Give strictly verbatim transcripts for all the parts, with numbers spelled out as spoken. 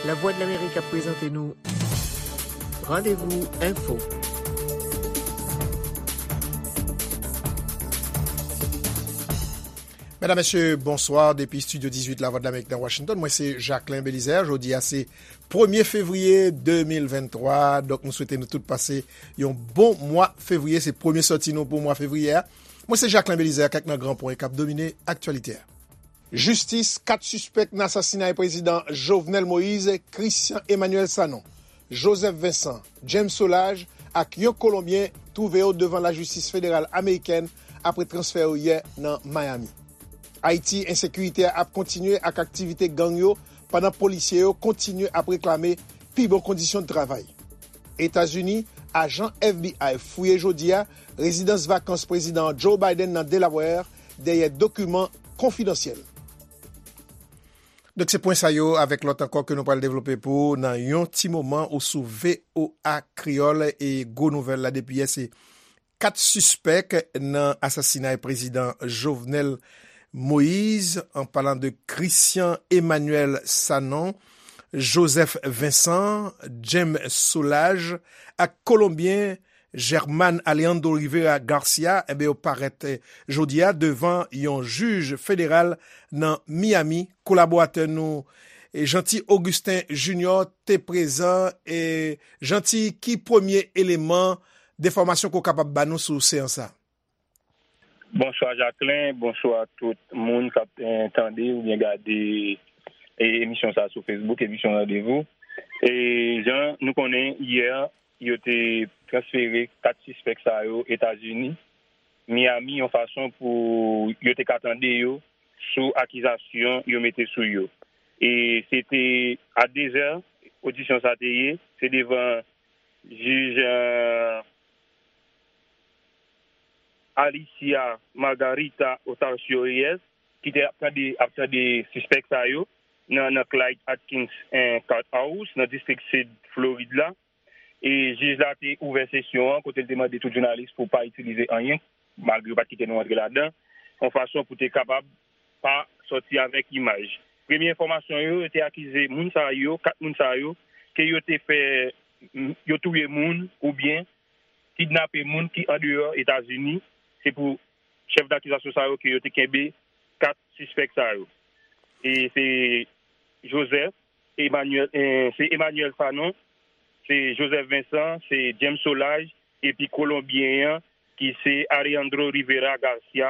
Lavwadlamerik ap prezante nou Randevou Enfo. Medam, mesye, bonswa. Depi estidyo dizuit Lavwadlamerik nan Washington, mwen se Jacquelin Belizaire. Jodi a se premye fevriye de mil venntwa. Donk, nou swete nou tout pase yon bon mwa fevriye. Se premye sòti nou pou mwa fevriye a. Mwen se Jacquelin Belizaire, kèk nan gran pwen k ap domine aktyalite a. Jistis kat sispèk nan asasinay prezidan Jovenel Moïse, Christian Emmanuel Sanon, Joseph Vincent, James Solages ak yon Kolonbyen twouve yo devan lajistis federal amerikèn apre transfè yo yè nan Miami. Ayiti, ensekirite a ap kontinye ak aktivite gang yo, pandan polisye yo kontinye ap reklame pi bon kondisyon de travay. Etazini, ajan F B I fouye jodi a rezidans vakans prezidan Joe Biden nan Delaware dèyè dokiman konfidansyèl. Donk, se pwen sa yo avèk lòt ankò ke nou pral devlope pou ou nan yon ti moman. Ou sou V O A Kreyòl, e gwo nouvèl la depi yè, se kat sispèk nan asasinay prezidan Jovenel Moïse, an palan de Christian Emmanuel Sanon, Joseph Vincent, James Solages ak Kolonbyen German Alejandro Rivera Garcia, enben, yo parèt, eh, jodi a devan yon jij federal nan Miami. Kolaboratè nou, eh, Jeanty Augustin Junior te prezan. E Jeanty, ki premye eleman de enfòmasyon ke w kapab ba nou sou seyans sa? Bonswa, Jacquelin. Bonswa tout moun k ap, eh, tande oubyen gade, eh, emisyon sa sou Facebook, emisyon Randevou. E jan nou konnen, yè, yo te transfere kat sispèk sa yo Etazini, Miami, yon fason pou yo te ka tande yo sou akizasyon yo mete sou yo. E se te a dezè, odisyon sa te ye, se devan jij, eh, Alicia Margarita Ocasio Reyes, ki te ap tande, ap tande sispèk sa yo nan, nan Clyde Atkins, eh, Courthouse, nan distrik sid Florid la. E jij la te ouvè sesyon an kote l te mande tout jounalis pou pa itilize anyen, malgre yo pa t kite nou antre ladan, yon fason pou te kapab pa sòti avèk imaj. Premye enfòmasyon yo, yo te akize moun sa yo, kat moun sa yo, ke yo te fè, yo touye moun oubyen kidnape moun ki andeyò Etazini. Se pou chèf dakizasyon sa yo ke yo te kenbe kat sispèk sa yo. E se Joseph Emmanuel, eh, se Emmanuel Sanon, se Joseph Vincent, se James Solages, epi Kolonbyen an, ki se Alejandro Rivera Garcia,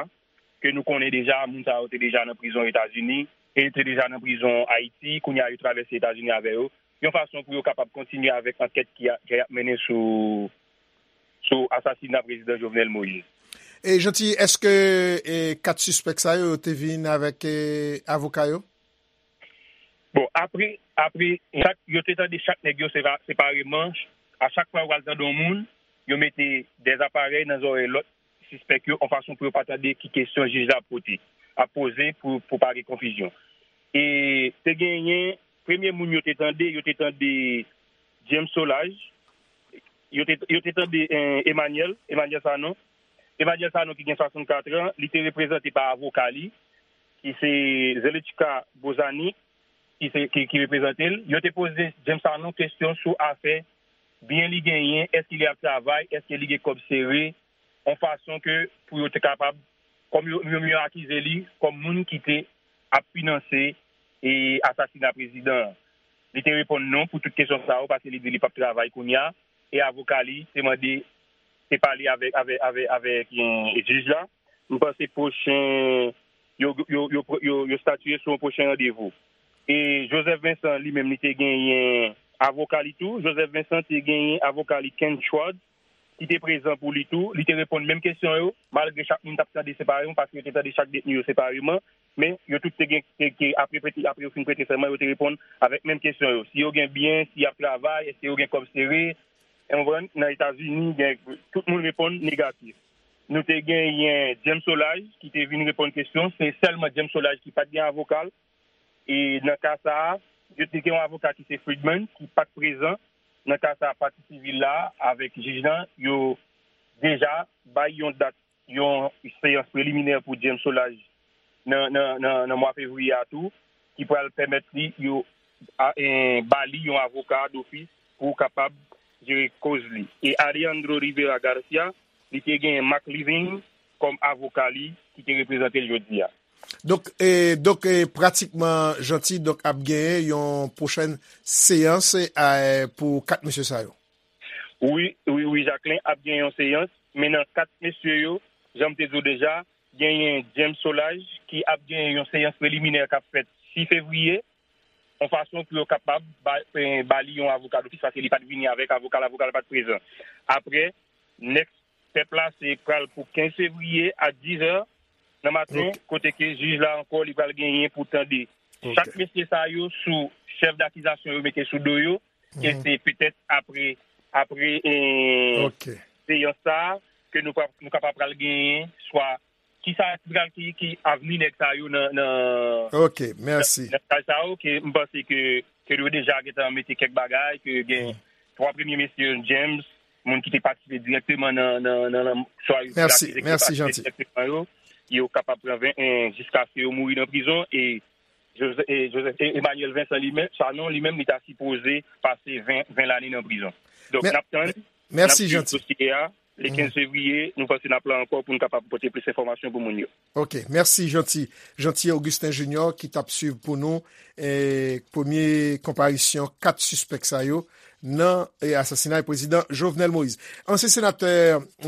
ke nou konnen deja, moun sa yo te deja nan prizon Etazini, e te deja nan prizon Ayiti, kounye a yo travèse Etazini avè yo, yon fason pou yo kapab kontinye avèk ankèt ki a, ki ap mennen sou, sou asasina prezidan Jovenel Moïse. E Jeanty, èske, e, kat sispèk sa yo, yo te vin avèk, e, avoka yo? Bon, apre, apre, chak, yo te tande chak nèg yo sera-, separeman. A chak fwa yo pral tande yon moun, yo mete dèz aparèy nan zòrèy lòt sispèk yo, yon fason pou yo pa tande ki kesyon jij la ap pote, ap poze pou, pou pa gen konfizyon. E te genyen, premye moun yo te tande, yo te tande James Solages, yo te, yo te tande, eh, Emmanuel, Emmanuel Sanon. Emmanuel Sanon ki gen swasannkat an, li te reprezante pa avoka li, ki se Zelichka Bozanic, ki se, ki, ki reprezante l. Yo te poze James Sanon kesyon sou afè byen li genyen, èske li ap travay, èske li gen kòb sere, yon fason ke pou yo te kapab, kòm yo, yo, yo akize li kòm moun ki te ap finanse, e, asasina prezidan an. Li te reponn non pou tout kesyon sa yo, paske li di li p ap travay kounye a, e avoka li te mande, te pale avèk, avèk, avèk, avèk, eh, jij la. M panse pwochen, yo, yo, yo, yo, yo, yo statye sou yon pwochen randevou. E Joseph Vincent, li menm, li te genyen avoka li tou. Joseph Vincent te genyen avoka li, Ken Schwartz, ki te prezan pou li tou. Li te reponn menm kesyon yo, malgre chak moun t ap tande separeman, paske yo te tande chak detni yo separeman. Men, yo tout te gen, te, te, apre, prete, apre yo fin prete sèman, yo te reponn avèk menm kesyon yo. Si yo gen byen, si y ap travay, èske yo gen kòb sere, w konprann, nan Etazini, gen, tout moun reponn negatif. Nou te genyen James Solages, ki te vin reponn kesyon. Se sèlman James Solages ki pa t gen avoka l. E nan ka sa a, yo te gen yon avoka ki se Friedman, ki pa t prezan nan ka sa a, pati sivil la avèk jij lan, yo deja bay yon dat, yon seyans preliminè pou James Solages nan, nan, nan, nan mwa fevriye a tou, ki pral pèmèt li, yo a, e, ba li yon avoka dofis pou kapab jere koz li. E Alejandro Rivera Garcia, li te gen Mark Levine kòm avoka li ki te reprezante l jodi a. Donk, e, donk, e, pratikman, Jeanty, donk, ap genyen yon pwochèn seyans, e, pou kat mesye sa yo. Wi, wi, wi, Jacquelin, ap gen yon seyans, men nan kat mesye yo, jan m te di w deja, genyen James Solages ki ap gen yon seyans preliminè k ap fèt sis fevriye, yon fason pou yo kapab ba, eh, ba li yon avoka dofis, paske li pa t vini avèk avoka l, avoka l pa t prezan. Apre, next step la, se pral pou kenz fevriye a diz è nan maten, kote ke jij la ankò, li pral genyen pou tande chak mesye sa yo sou chèf dakizasyon yo mete sou do yo, e se petèt apre, apre, eh, seyans sa a, ke nou, pa, nou kapab pral genyen swa ki sa ki pral, ki, ki avni nèg sa yo nan, nan, nan, nan kay sa yo, ke m panse ke, ke yo deja gentan mete kèk bagay, ke gen twa premye mesye James, moun ki te patisipe dirèkteman nan, nan, nan, nan, swa yo te akize ke yo patisipe dirèkteman yo, yo kapab pran ven, eh, jiskaske yo mouri nan prizon, e Joseph, e Joseph, e Emmanuel Vincent li menm, Sanon li menm, li ta sipoze pase ven, ven lane nan prizon. Donk, n ap tann, n ap swiv dosye a. Le kenz fevriye, nou panse n ap la ankò pou n kapab pote plis enfòmasyon pou moun yo. Ok, mèsi, Jeanty. Jeanty Augustin Junior ki t ap swiv pou nou, eh, premye konparisyon kat sispèk sa yo nan, eh, asasinay prezidan Jovenel Moïse. Ansyen senatè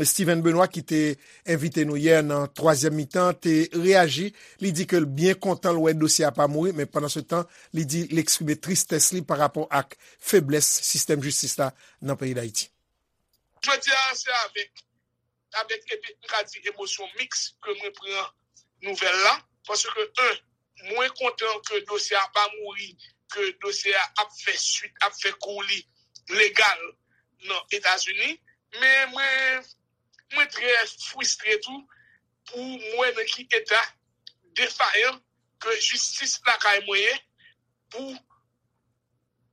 Steven Benoît ki te envite nou yè nan twazyèm mitan te reyaji. Li di ke l byen kontan l wè dosye a pa mouri, men pandan se tan, li di l eksprime tristès li pa rapò ak feblès sistèm jistis la nan peyi Dayiti. Jodi a, se avèk, avèk, epi, m ka di, emosyon miks ke mwen pran nouvèl la, paske, en, mwen kontan ke dosye a pa mouri, ke dosye a ap fè swit, ap fè kou li legal nan Etazini, men mwen, mwen trè fristre tou pou m wè nan ki eta defayan ke jistis lakay mwen ye pou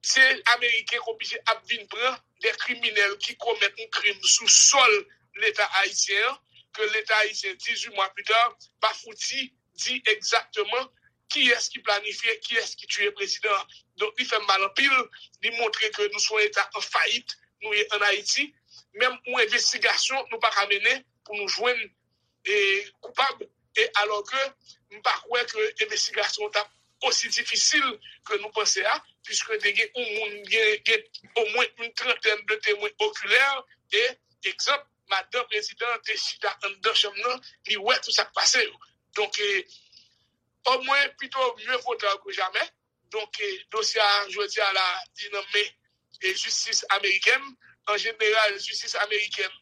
se Ameriken k oblije ap vin pran de kriminèl ki komèt yon krim sou sòl Leta ayisyen an, ke Leta ayisyen, dizuit mwa pita, pa fouti di egzakteman kiyès ki planifye, kiyès ki tiye prezidan an. Donk, li fè m mal anpil, li montre ke nou se yon Eta an fayit, nou ye ann Ayiti. Menm yon envestigasyon, nou pa ka mennen pou nou jwenn e, koupab, e alò ke m pa kwè ke envestigasyon an t ap osi difisil ke nou panse a, piske te gen yon moun, gen, gen omwen yon trantèn de temwen okilè, e, egzanp, madanm prezidan an te chita anndan chanm nan, li wè tout sa k pase yo. Donk, e, omwen, pito mieux vaut tard que jamais. Donk, e, dosye a, jodi a la, li nan men, e, jistis amerikèn. An jeneral, jistis amerikèn,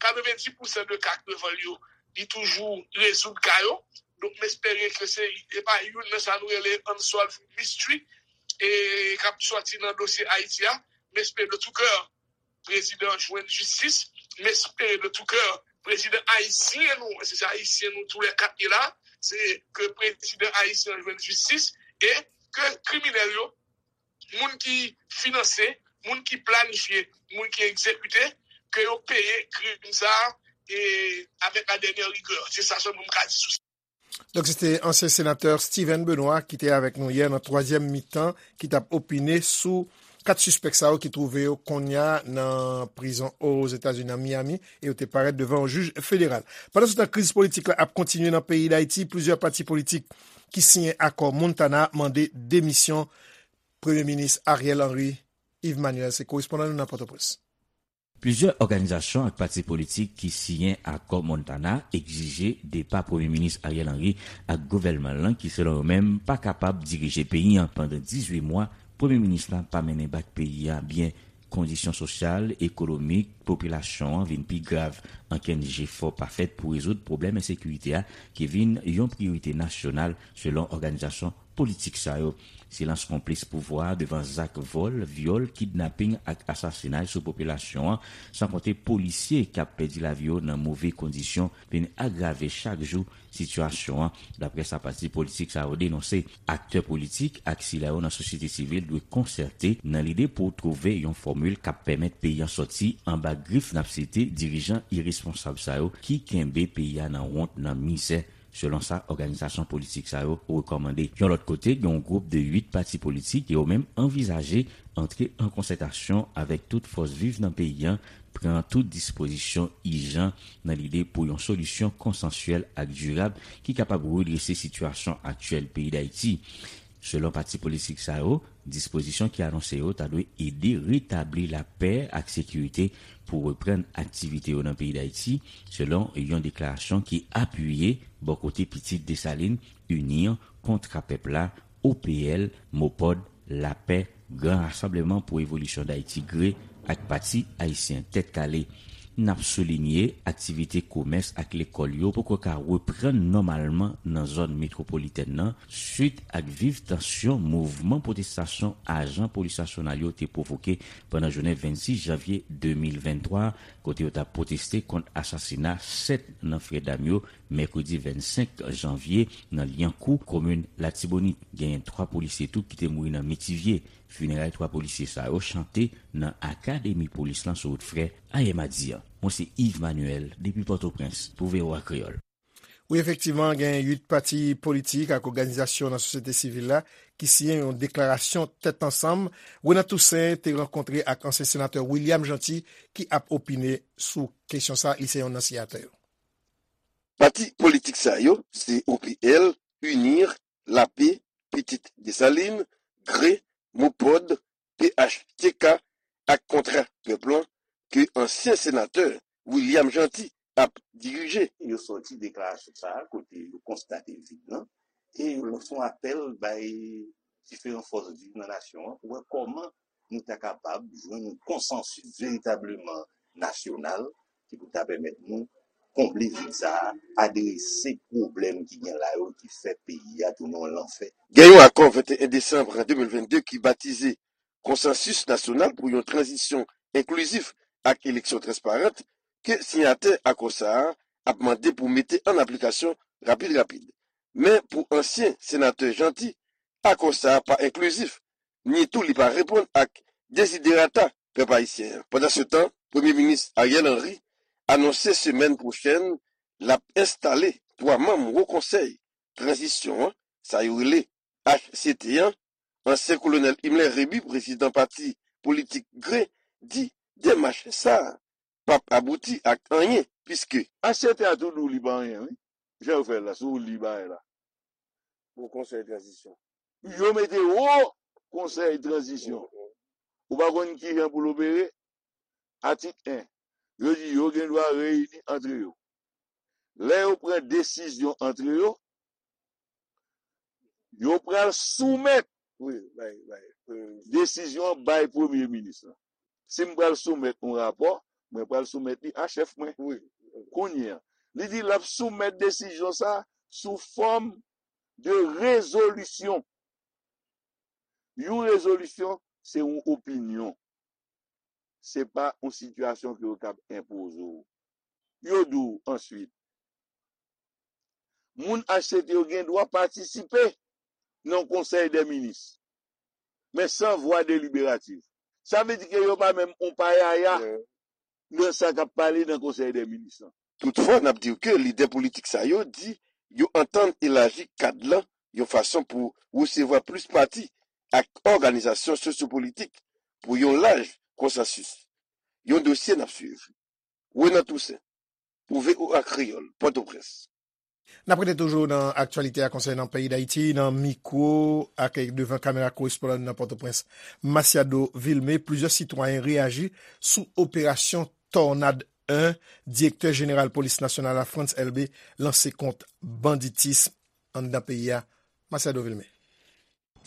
katrevenndis pousan de ka krevòl yo, li toujou rezoud ka yo. Donk, m espere ke se, e pa youn nan sa nou rele unsolved mystery, e, k ap sòti nan dosye Ayiti a. M espere de tout cœur prezidan an jwenn jistis. M espere de tout cœur prezidan ayisyen nou, se, se ayisyen nou tou lè kat ye la, se ke prezidan ayisyen an jwenn jistis e ke kriminèl yo, moun ki finanse, moun ki planifye, moun ki egzekite, ke yo peye krim sa a e avèk la dènyè rigè. Se sa sèlman m ka di sou sa. Donk, se te ansyen senatè Steven Benoît ki te avèk nou yè nan twazyèm mitan, ki t ap opine sou kat sispèk sa yo ki twouve yo kounye a nan prizon Ozetazini, nan Miami, e yo te parèt devan yon jij federal. Pandan se tan, kriz politik la ap kontinye nan peyi Dayiti. Plizyè pati politik ki siyen akò Montana mande demisyon Premye Minis Ariel Henry. Yves Manuel se korespondan nou nan Pòtoprens. Plizyè òganizasyon ak pati politik ki siyen akò Montana egzije depa Premye Minis Ariel Henry ak gouvènman l lan ki, selon yo menm, pa kapab dirije peyi a pandan dizuit mwa. Premye Minis la pa mennen bak peyi a byen. Kondisyon sosyal, ekonomik, popilasyon an vin pi grav. Ankenn jefò pa fèt pou rezoud pwoblèm ensekirite a ki vin yon priyorite nasyonal, selon òganizasyon politik sa yo. Silans konplis pouvwa a devan zak vòl, vyòl, kidnaping ak asasinay sou popilasyon an, san konte polisye k ap pèdi lavi yo nan move kondisyon, vin agrave chak jou sitiyasyon an, daprè sa pati politik sa yo denonse. Aktè politik ak sila yo nan sosyete sivil dwe konsète nan lide pou twouve yon fòmil k ap pèmèt peyi an sòti anba grif, n ap site, dirijan iresponsab sa yo ki kenbe peyi a nan wont, nan mizè. Selon sa òganizasyon politik sa yo rekòmande. Yon lòt kote, gen yon gwoup de uit pati politik, yo menm anvizaje antre an konsètasyon avèk tout fòs viv nan peyi a, pran tout dispozisyon ijan nan lide pou yon solisyon konsansyèl ak dirab ki kapab redrese sitiyasyon aktyèl peyi Dayiti. Selon pati politik sa yo, dispozisyon ki anonse yo ta dwe ede retabli lapè ak sekirite pou reprann aktivite yo nan peyi Dayiti, selon yon deklarasyon ki apiye bò kote Pitit Desalin, UNIR, Kontra Pèp la, O P L, MOPOD, Lapè, Gran Rasanbleman pou Evolisyon Dayiti, GRE, ak Pati Ayisyen Tèt Kale. N ap soulinye, aktivite komès ak lekòl yo poko ka reprann nòmalman nan zòn metwopolitèn nan, swit ak viv tansyon mouvman pwotestasyon ajan polis nasyonal yo te pwovoke pandan jounen vennsis janvye de mil venntwa, kote yo t ap pwoteste kont asasina sèt nan frè dam yo, mèkredi vennsenk janvye, nan Lyankou, komin Latibonit. Genyen twa polisye tou ki te mouri nan Metivye. Fineray twa polisye sa yo chante nan akademi polis lan sou wout Frè ayè madi a. Mwen se Yves Manuel depi Pòtoprens pou V O A Kreyòl. Wi, efektivman, gen uit pati politik ak òganizasyon nan sosyete sivil la ki siyen yon deklarasyon tèt ansanm. Renan Toussaint te rankontre ak ansyen senatè William Jeanty ki ap opine sou kesyon sa, li se yonn nan siyatè yo. Pati politik sa yo se O P L, UNIR, Lapè, Pitit Desalin, GRE, MOPOD, P H T K ak Kontra Pèp lan ke ansyen senatè William Jeanty ap dirije. Yo sòti deklarasyon sa a kote yo konstate vid lan e yo lanse yon apèl bay diferan fòs viv nan nasyon an pou wè kòman nou ta kapab jwenn yon konsansis veritableman nasyonal ki pou ta pèmèt nou konble vid sa a, adrese pwoblèm ki gen la yo ki fè peyi a tounen yon lanfè. Gen yon akò venteyen desanm de mil vennde ki batize Konsansis Nasyonal pou yon Tranzisyon Enklizif ak Eleksyon Transparant ke siyatè akò sa a ap mande pou mete an aplikasyon rapid rapid. Men pou ansyen senatè Jeanty, akò sa a pa enklizif, ni tou li pa reponn ak deziderata pèp ayisyen an. Pandansetan, Premye Minis Ariel Henry anonse semèn pwochèn l ap enstale twa manm Wo Konsèy Tranzisyon an, sa yo rele H C T an. Ansyen Kolonèl Himmler Rébu, prezidan pati politik GRE, di demach sa a p ap abouti ak anyen, piske H C T a tou di w li pa anyen, wi. Jan yo fè l la, si w li bagay la. Wo Konsèy Tranzisyon. Yo mete Wo Konsèy Tranzisyon. Ou pa konn ki jan pou l opere? Atik en. Yo di yo gen dwa reyini antre yo. Lè yo pran desizyon antre yo, yo pral soumèt Wi, bay, bay. Desizyon an bay premye minis lan. Si m pral soumèt yon rapò, mwen pral soumèt li a chèf mwen. Wi. Kounye a, li di l ap soumèt desizyon sa a sou fòm de rezolisyon. Yon rezolisyon, se yon opinyon. Se pa yon sitiyasyon ke yo kab enpoze w. Yo di w answit, moun H C T yo gen dwa patisipe nan konsèy dè minis, men san vwa deliberatif. Sa vle di ke yo pa menm yon payaya nan sa k ap pale nan konsèy dè minis lan. Toutfwa, n ap di w ke lidè politik sa yo di yo antann elaji kad lan yon fason pou resevwa plis pati ak òganizasyon sosyopolitik pou yon laj konsansis. Yon dosye n ap swiv. Renan Toussaint, pou V O A Kreyòl, Pòtoprens. N ap rete toujou nan aktyalite a konsènan peyi Dayiti, nan mikwo ak devan kamera korespondan nou nan Pòtoprens, Masiado Vilmé. Plizyè sitwayen reyaji sou operasyon Tònad en, direktè jeneral polis nasyonal la, Frantz Elbé, lanse kont banditis anndan peyi a. Masiado Vilmé.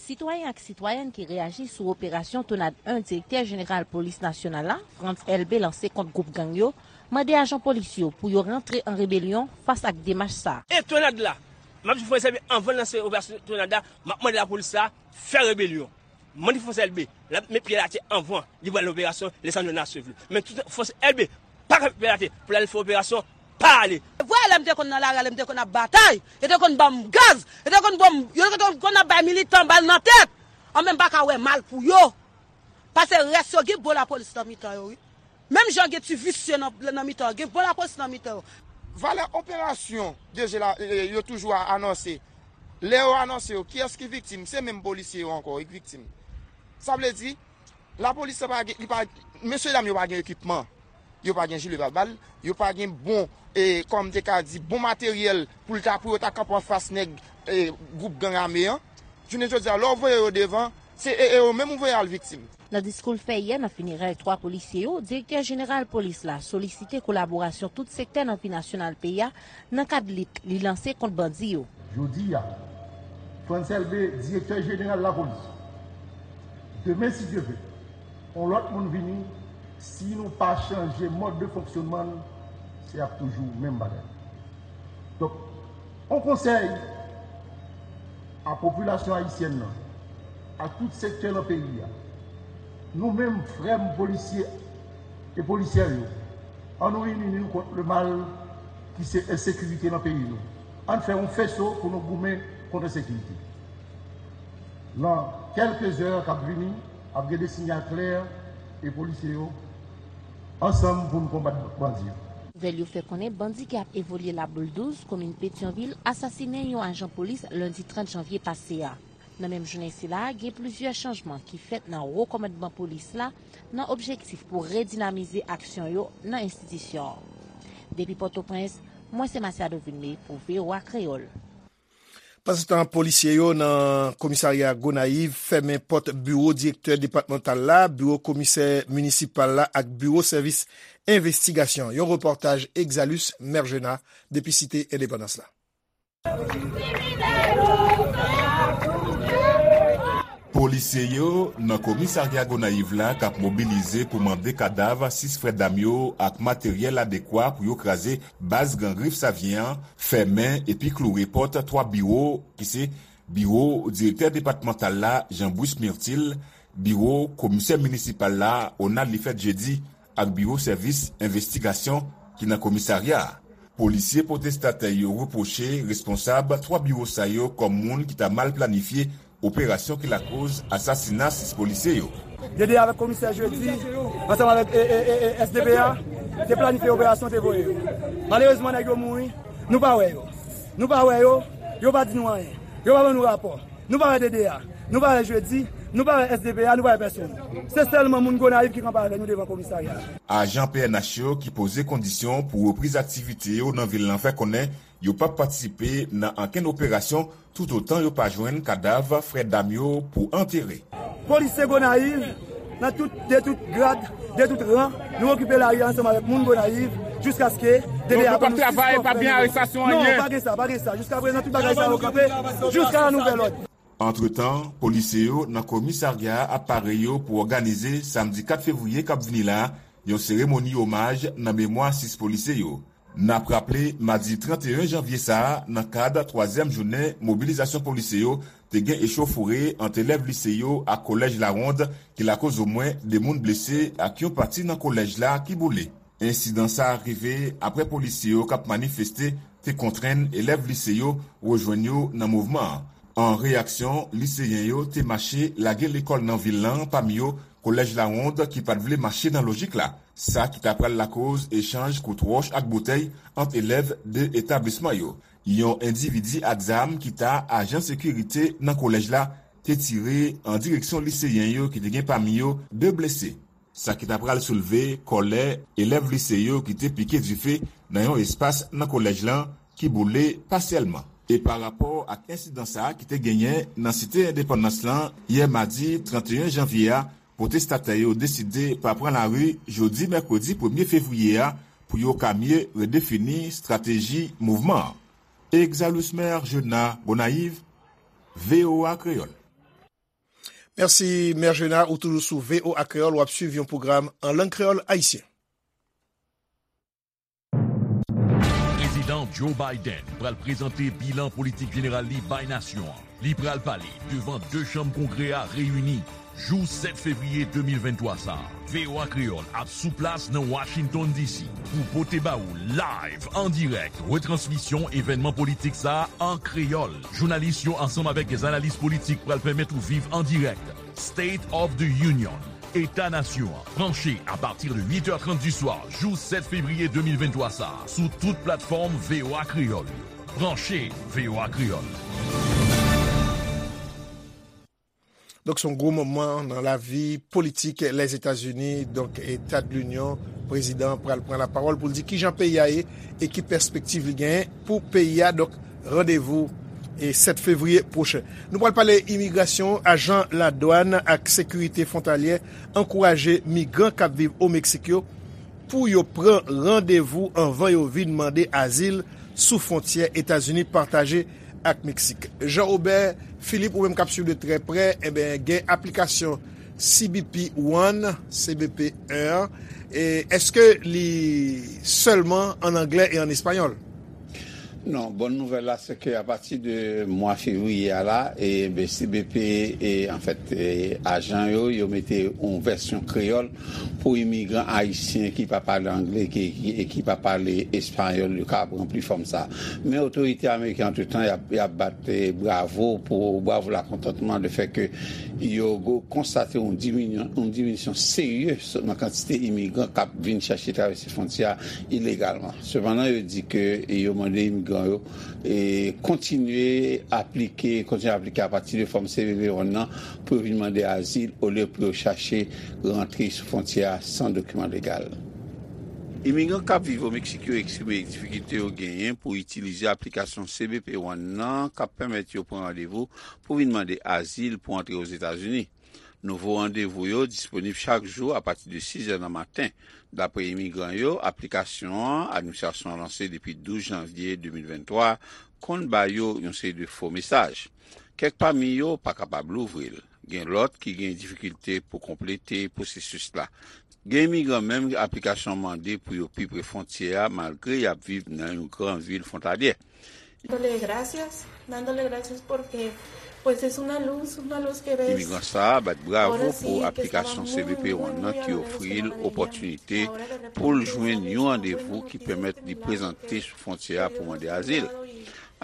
Sitwayen ak sitwayèn ki reyaji sou operasyon Tonad en direktè jeneral polis nasyonal la, Frantz Elbé, lanse kont gwoup gang yo, mande ajan polis yo pou yo rantre an rebelyon fas ak demach sa a. E Tonad la, m ap di Frantz Elbé, anvan l lanse operasyon Tonad la, m ap mande lapolis la fè rebelyon. Mande Frantz Elbé, l ap met pye l atè anvan li pral operasyon Lisandro Nassif li. Men tout Frantz Elbé pa kanpe atè pou l al fè operasyon, pa ale. Vwè lè m te konn nan lari a, lè m te konn ap batay, yo te konn ban m gaz, yo te konn ban m, yo te konn ap bay militan bal nan tèt. An, men m pa ka wè mal pou yo. Paske rès yo gen bon lapolis nan mitan yo, wi. Menm jan gen ti visye nan, nan mitan yo, gen bon lapolis nan mitan yo. Valè operasyon D G la, e, e, yo toujou a-, anonse. Lè yo anonse yo, kiyès ki viktim? Se menm polisye yo ankò ki viktim. Sa vle di, lapolis la pa gen, li pa, mesye dam yo pa gen ekipman. Yo pa gen jile pabal, yo pa gen bon, e, kòm te ka di, bon materyèl pou l ta, pou yo ta kanpe anfas nèg, e, gwoup gang ame an. Jounen jodi a, lè w voye yo devan, se e, e yo menm ou voye al viktim. Nan diskou l fè yè nan finerèy twa polisye yo, direktè jeneral polis la solisite kolaborasyon tout sektè nan vi nasyonal peyi a nan kad lit li lanse kont bandi yo. Jodi a, Frantz Elbé, direktè jeneral lapolis. Demen, si Dye vle, yon lòt moun vini, si nou pa chanje mòd de fonksyonman n, se ap toujou menm bagay. Donk, yon konsèy a popilasyon ayisyèn nan, a tout sektè nan peyi a. Nou menm, frè m polisye e polisyè yo, ann nou ini nou kont le mal ki se ensekirite nan peyi nou. Ann fè yon feso pou nou goumen kont ensekirite. Nan kèlke zè k ap vini, ap gen de sinyal klè e polisye yo ansanm pou n konbat bandi yo. Nouvèl yo fè konnen bandi ki ap evolye Laboul douz, komin Petyonvil, asasinen yon ajan polis lendi trant janvye pase a. Nan menm jounen sila a, gen plizyè chanjman ki fèt nan wo kòmandman polis la nan objektif pou redinamize aksyon yo nan enstitisyon an. Depi Pòtoprens, mwen se Masiado Vilmé pou V O A Kreyòl. Pandansetan, polisye yo nan komisarya Gonayiv fèmen pòt biwo direktè depatmantal la, biwo komisè minisipal la ak biwo sèvis envestigasyon. Yon repòtaj Exalus Mergena depi Site Endepandans la. Polisye yo nan komisarya Gonayiv la k ap mobilize pou mande kadav sis frè dam yo ak materyèl adekwa pou yo kraze baz gang Rif Savyen an, fèmen epi kloure pòt twa biwo ki se biwo direktè depatmantal la, Jean Bruce Myrtil, biwo komisè minisipal la, Onald Lifèt Jedi, ak biwo sèvis envestigasyon ki nan komisarya a. Polisye pwotestatè yo repwoche responsab twa biwo sa yo kòm moun ki ta mal planifye operasyon ki lakoz asasina sis polisye yo. D D A avèk komisè Jedi, ansanm avèk, e, e, e, e, S D P A, te planifye operasyon, te voye yo. Malerezman, nèg yo mouri, nou pa wè yo. Nou pa wè yo, yo pa di nou anyen. Yo pa ban nou rapò. Nou pa wè D D A, nou pa wè Jedi, nou pa wè S D P A, nou pa wè pèsonn. Se sèlman moun Gonayiv ki kanpe avè nou devan komisarya a. Ajan P N H yo ki poze kondisyon pou repriz aktivite yo nan vil lan fè konnen yo p ap patisipe nan ankenn operasyon toutotan yo pa jwenn kadav frè dam yo pou antere. Polisye Gonayiv, nan tout, de tout grad, de tout ran, nou okipe lari a ansanm avèk moun Gonayiv, jiskaske D D A ban nou sis kò frè nou. Non, pa gen sa, pa gen sa. Jiska prezan, tout bagay sa yo kanpe, jiska nan nouvèl òd. Antretan, polisye yo nan komisarya a ap pare yo pou òganize, samdi kat fevriye k ap vini la, yon seremoni omaj nan memwa sis polisye yo. N ap raple, madi trannteyen janvye sa a, nan kad twazyèm jounen mobilizasyon polisye yo, te gen echofore ant elèv lise yo ak kolèj Lawond, ki lakoz omwen de moun blese ak yon pati nan kolèj la ki boule. Ensidan sa a rive apre polisye yo k ap manifeste te kontrenn elèv lise yo rejwenn yo nan mouvman an. An reyaksyon, liseyen yo te mache lage lekòl nan vil lan, pami yo kolèj Lawond ki pa t vle mache nan lojik la, sa ki ta pral lakoz echanj kout wòch ak boutèy ant elèv de etablisman yo. Yon endividi ak zam ki ta ajan sekirite nan kolèj la te tire an direksyon liseyen yo ki te gen pami yo de blese. Sa ki ta pral soulve kòlè elèv lise yo ki te pike dife nan yon espas nan kolèj lan ki boule pasyèlman. E pa rapò ak ensidan sa a ki te genyen nan Site Endepandans lan yè madi trannteyen janvye a, pwotestatè yo deside pa pran lari jodi mèkredi premye fevriye a pou yo ka mye redefini estrateji mouvman an. Exalus Maire Jona Gonayiv, V O A Kreyòl. Mèsi, Mè Jena, ou toujou sou V O A Kreyòl, w ap swiv yon pwogram an lang kreyòl ayisyen. Prezidan Joe Biden pral prezante bilan politik jeneral li bay nasyon an. Li pral pale devan de chanm Kongrè a reyini jou sèt fevriye de mil venntwa sa a. V O A Kreyòl ap sou plas nan Washington D C pou pote ba ou live, an dirèk, retransmisyon evènman politik sa a an kreyòl. Jounalis yo ansanm avèk dèz analis politik pral pèmèt ou viv an dirèk State of the Union, Eta Nasyon an. Branche apati de uit è trant di swa jou sèt fevriye de mil venntwa sa a sou tout platfòm V O A Kreyòl yo. Branche V O A Kreyòl. Donk, se yon gwo moman nan lavi politik Lèzetazini. Donk, Eta de Linyon, prezidan an pral pran lapawòl pou l di kijan peyi a ye e ki pèspektiv li genyen pou peyi a. Donk, randevou e sèt fevriye pwochen. Nou pral pale imigrasyon. Ajan ladwàn ak sekirite fwontalyè ankouraje migran k ap viv o Meksik yo pou yo pran randevou anvan yo vin mande azil sou fwontyè Etazini pataje ak Meksik. Jean Robert Philippe, ou menm k ap swiv de trè prè, enben, gen aplikasyon C B P One, C B P wan, e èske li sèlman an anglè e an espanyòl? Non, bòn nouvèl la, se ke apati de mwa fevriye a la, e, ben, C B P, e, anfèt, e, ajan yo, yo mete yon vèsyon kreyòl pou imigran ayisyen ki pa pale anglè ki, ki, e ki pa pale espayòl, yo ka ranpli fòm sa. Men otorite ameriken, antretan, y ap, y ap bat, e, bravo pou, bravo lakontantman de fè ke yo go-, konstate yon diminyon, yon diminisyon serye nan kantite imigran k ap vin chèche travèse fwontyè a ilegalman. Sepandan, yo di ke yo mande imigran yo, e, kontinye aplike, kontinye aplike apati de fòm C B P One nan pou yo vin mande azil olye pou yo chache rantre sou fwontyè a san dokiman legal. Imigran k ap viv o Meksik yo eksprime difikilte yo genyen pou itilize aplikasyon C B P One nan k ap pèmèt yo pran randevou pou vin mande azil pou antre Ozetazini. Nouvo randevou yo disponib chak jou apati de sis è nan maten. Dapre imigran yo, aplikasyon an, administrasyon an lanse depi douz janvye de mil venntwa, konn ba yo yon seri de fo mesaj. Kèk pami yo pa kapab louvri l. Gen lòt ki gen difikilte pou konplete pwosesis la. Gen imigran menm aplikasyon an mande pou yo pi pre fwontyè a, malgre y ap viv nan yon gran vil fwontalyè. Dándole gracias, dándole gracias porque, pues, es una luz, una luz que ves. Imigran sa a bat bravo pou aplikasyon C B P One nan ki ofri l opòtinite pou l jwenn yon randevou ki pèmèt li prezante sou fwontyè a pou mande azil.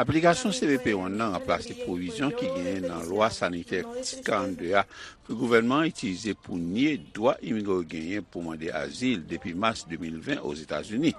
Aplikasyon C B P One nan ranplase pwovizyon ki genyen nan lwa sanitè Title trannde a ke gouvènman an itilize pou nye dwa imigran yo genyen pou mande azil depi mas de mil ven Ozetazini.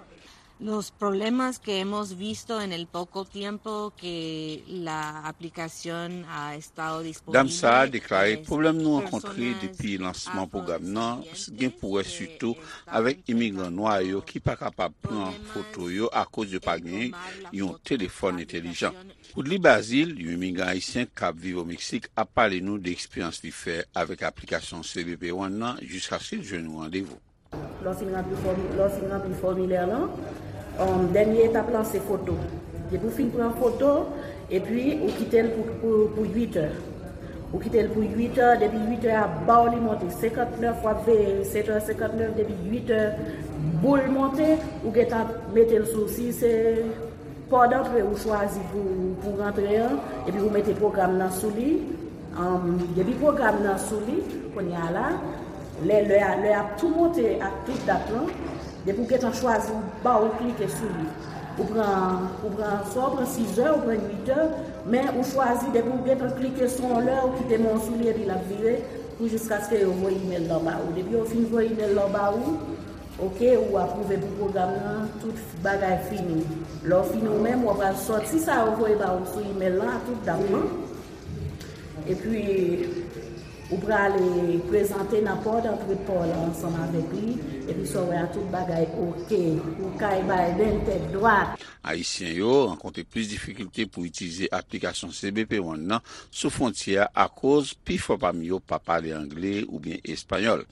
Los problemas que hemos visto en el poco tiempo que la aplicación ha estado disponible. Dam sa a deklare pwoblèm nou rankontre depi lansman pwogram nan gen pou wè sitou avèk imigran nwa yo ki pa kapab pran foto yo akoz yo pa gen yon telefòn entèlijan. Woodly Bazile, yon imigran ayisyen k ap viv o Meksik, ap pale nou de eksperyans li fè avèk aplikasyon C B P One nan jiskaske l jwenn yon randevou. Lè w fin ranpli fòmi-, lè w fin ranpli fòmilè lan, um, dènye etap lan se foto. Depi w fin pran foto, epi ou kite l pou, pou, pou uit è. Ou kite l pou uit è, depi uit è a ba w li monte senkantnèf, w ap veye sèt è senkantnèf, depi uit è boul monte, ou gentan mete l sou, si se pò dantre ou chwazi pou, pou rantre an, epi ou mete pwogram nan sou li. Anm, depi pwogram nan sou li, kounye a la, lè, lè a, lè a ap tou monte ak tout dat lan, depi ou gentan chwazi, ou ba ou klike sou li. Ou pran, ou pran, swa ou pran sis è, ou pran uit è, men ou chwazi, depi ou gentan klike sou yon lè, ou kite men w sou li, epi l ap vire, pou jiskaske yo voye imèl lan ba ou. Depi yo fin voye imèl lan ba ou, oke, ou apwouve pou pwogram nan, tout bagay fini. Lè w fini ou menm, w ap al sòti sa yo voye ba ou sou imèl lan, ak tout dat lan. Epi, ou prale prezante nan pò dantre pa w lan ansanm avèk li, epi sa w wè a tout bagay oke. Ou kay Biden tèt dwat. Ayisyen yo rankontre plis difikilte pou itilize aplikasyon C B P One nan sou fwontyè a akoz pifò pami yo pa pale angle oubyen espanyòl.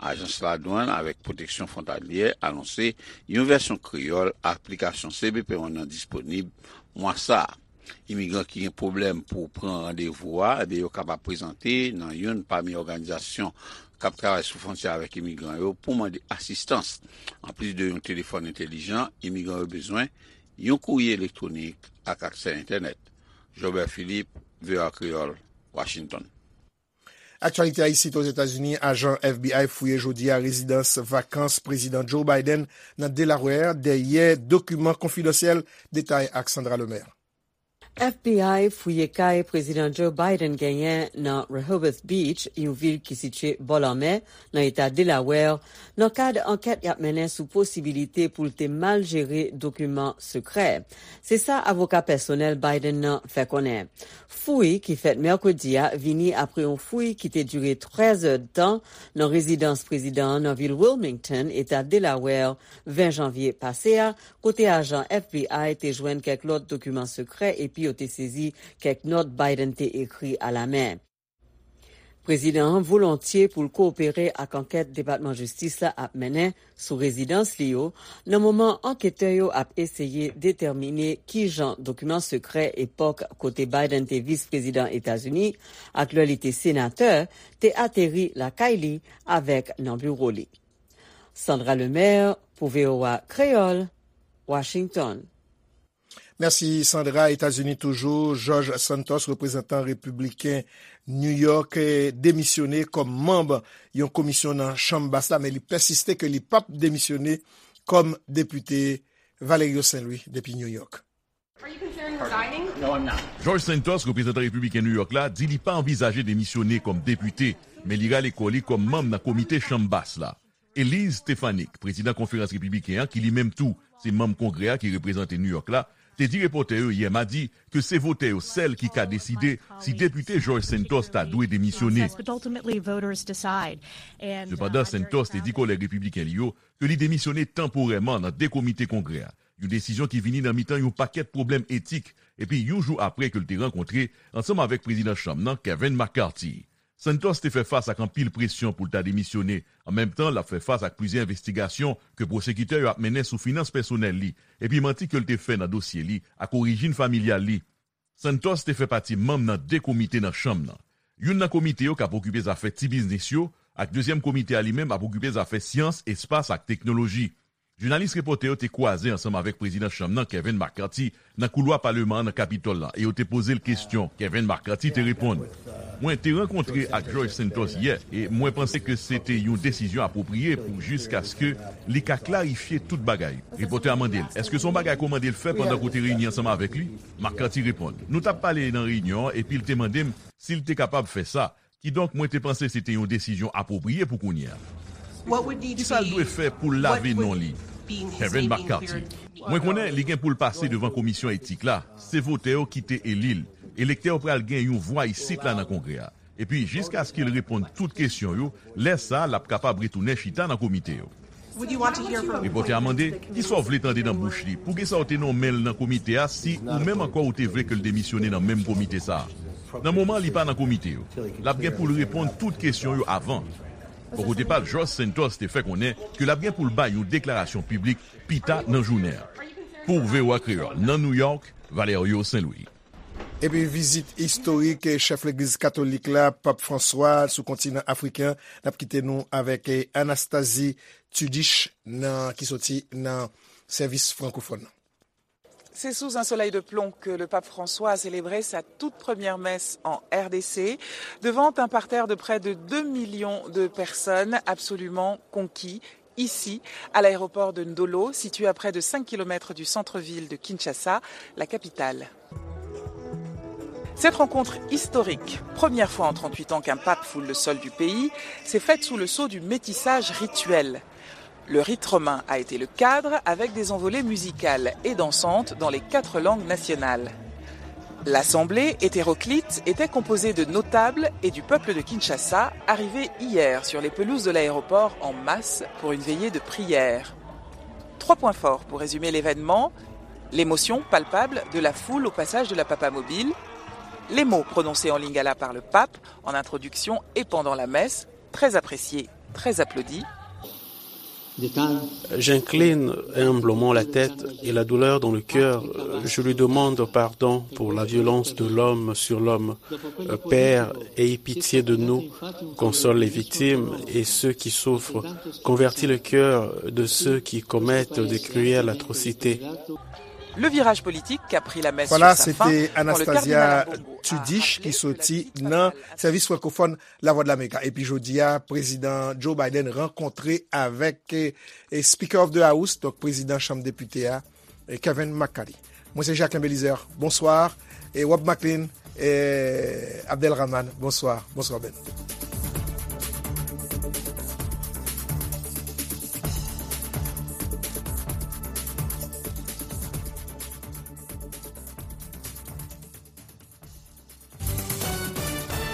Ajans Ladwann avèk Pwoteksyon Fwontalyè anonse yon vèsyon kreyòl aplikasyon C B P One nan disponib mwa sa a. Imigran ki gen pwoblèm pou pran randevou a, ebyen, yo kapab prezante nan youn pami òganizasyon k ap travay sou fwontyè avèk imigran yo pou mande asistans. Anplis de yon telefòn entèlijan, imigran yo bezwen yon kourye elektwonik ak aksè entènèt. Jobert Philippe, V O A Kreyòl, Washington. Aktyalite a isit Ozetazini, ajan F B I fouye jodi a rezidans vakans Prezidan Joe Biden nan Delaware dèyè dokiman konfidansyèl. Detay ak Sandra Lemaire. F B I fouye kay Prezidan Joe Biden genyen nan Rehoboth Beach, yon vil ki sitiye bò lanmè, nan eta Delaware, nan kad ankèt y ap mennen sou posibilite pou l te mal jere dokiman sekrè. Se sa avoka pèsonèl Biden nan fè konnen. Fouy ki fèt mèkredi a vini apre yon fouy ki te dire trèz èdtan nan rezidans prezidan an nan vil Wilmington, eta Delaware, ven janvye pase a, kote ajan F B I te jwenn kèk lòt dokiman sekrè epi yo te sezi kèk nòt Biden te ekri alamen. Prezidan an volontye pou l kowopere ak ankèt Depatman Jistis la ap mennen sou rezidans li yo, nan moman anketè yo ap eseye detèmine ki jan dokiman sekrè epòk kote Biden te vis prezidan Etazini ak lè li te senatè te ateri lakay li avèk nan biwo li. Sandra Lemaire pou V O A Kreyòl, Washington. Mèsi Sandra. Etazini toujou, George Santos, reprezantan repibliken New York, eh, demisyone kòm manm yon komisyon nan Chanm Bas la, men li pèsiste ke li p ap demisyone kòm depite. Valerio Saint Louis depi New York. George Santos, reprezantan repibliken New York la, di li pa anvizaje demisyone kòm depite, men li rale kò li kòm manm nan komite Chanm Bas la. Elise Stefanik, prezidan konferans repibliken an, ki li menm tou se manm Kongrè a ki reprezante New York la, te di repòtè yo yè madi ke se votè yo sèl ki ka deside si depite George Santos ta dwe demisyone. Sepandan, Santos te di kòlèg repibliken li yo ke li demisyone tanporèman nan de komite Kongrè a, yon desizyon ki vini nan mitan yon pakèt pwoblèm etik, epi yon jou apre ke l te rankontre ansanm avèk prezidan chanm nan, Kevin McCarthy. Santos te fè fas ak anpil presyon pou l ta demisyone. An menm tan, l ap fè fas ak plizyè envestigasyon ke pwosekitè yo ap mennen sou finans pèsonèl li, epi manti ke l te fè nan dosye li ak orijin familyal li. Santos te fè pati manm nan de komite nan chanm nan. Youn nan komite yo k ap okipe zafè ti biznis yo, ak dezyèm komite a li menm ap okipe zafè syans, espas ak teknoloji. Jounalis repòtè yo te kwaze ansanm avèk prezidan chanm nan, Kevin McCarthy, nan koulwa paleman an nan Kapitòl la, e yo te poze l kesyon. Kevin McCarthy te reponn, mwen te rankontre ak George Santos yè, e mwen panse ke se te yon desizyon apwopriye pou jiskaske li ka klarifye tout bagay. Repòtè a mande l, èske se yon bagay ke w mande l fè pandan ke w te reyini ansanm avèk li? McCarthy reponn, nou t ap pale nan reyinyon an, epi l te mande m si l te kapab fè sa. Kidonk, mwen te panse se te yon desizyon apwopriye pou kounye a. Kisa l dwe fè pou l lave non li? Kevin McCarthy, mwen konnen li gen pou l pase devan komisyon etik la. Se votè yo ki te eli l. Elektè yo pral gen yon vwa isit la nan Kongrè a. Epi, jiskaske l reponn tout kesyon yo, lè sa a, l ap kapab retounen chita nan komite yo. Repòtè a mande, kisa w vle tande nan bouch li? Poukisa w te nonmen l nan komite a si ou menm ankò ou te vle ke l demisyone nan menm komite sa a? Nan moman an, li pa nan komite yo. L ap gen pou l reponn tout kesyon yo avan. Bò kote pa l, George Santos te fè konnen ke l ap gen pou l bay yon deklarasyon piblik pita nan jounen an. Pou V O A Kreyòl, nan New York, Valerio Saint Louis. Epi vizit istorik chèf legliz katolik la, Pap Franswa, sou kontinan afriken an, n ap kite nou avèk, eh, Anastasie Tudich nan, ki soti nan sèvis frankofòn nan. C'est sous un soleil de plomb que le pape François a célébré sa toute première messe en R D C, devant un parterre de près de deux millions de personnes absolument conquis, ici, à l'aéroport de Ndolo, situé à près de cinq kilomètres du centre-ville de Kinshasa, la capitale. Cette rencontre historique, première fois en trente-huit ans qu'un pape foule le sol du pays, s'est faite sous le sceau du métissage rituel. Le rite romain a été le cadre avec des envolées musicales et dansantes dans les quatre langues nationales. L'assemblée hétéroclite était composée de notables et du peuple de Kinshasa, arrivés hier sur les pelouses de l'aéroport en masse pour une veillée de prière. Trois points forts pour résumer l'événement, l'émotion palpable de la foule au passage de la Papamobile, les mots prononcés en lingala par le pape en introduction et pendant la messe, très appréciés, très applaudis. J'incline humblement la tête et la douleur dans le cœur. Je lui demande pardon pour la violence de l'homme sur l'homme. Père, aie pitié de nous, console les victimes et ceux qui souffrent. Convertis le cœur de ceux qui commettent de cruelles atrocités. Le virage politique qu'a pris la messe sur sa fin quand le cardinal Ambongo a rappelé que la Sèvis frankofòn Lavwadlamerik. Epi jodi a, Prezidan Joe Biden rankontre avèk, eh, Speaker of the House, donk Prezidan Chanm Depite a, eh, Kevin McCarthy. Mwen se Jacquelin Belizaire. Bonswa. e Rob Maclean, e Abdelrahman, bonswa. Bonswa, Ben.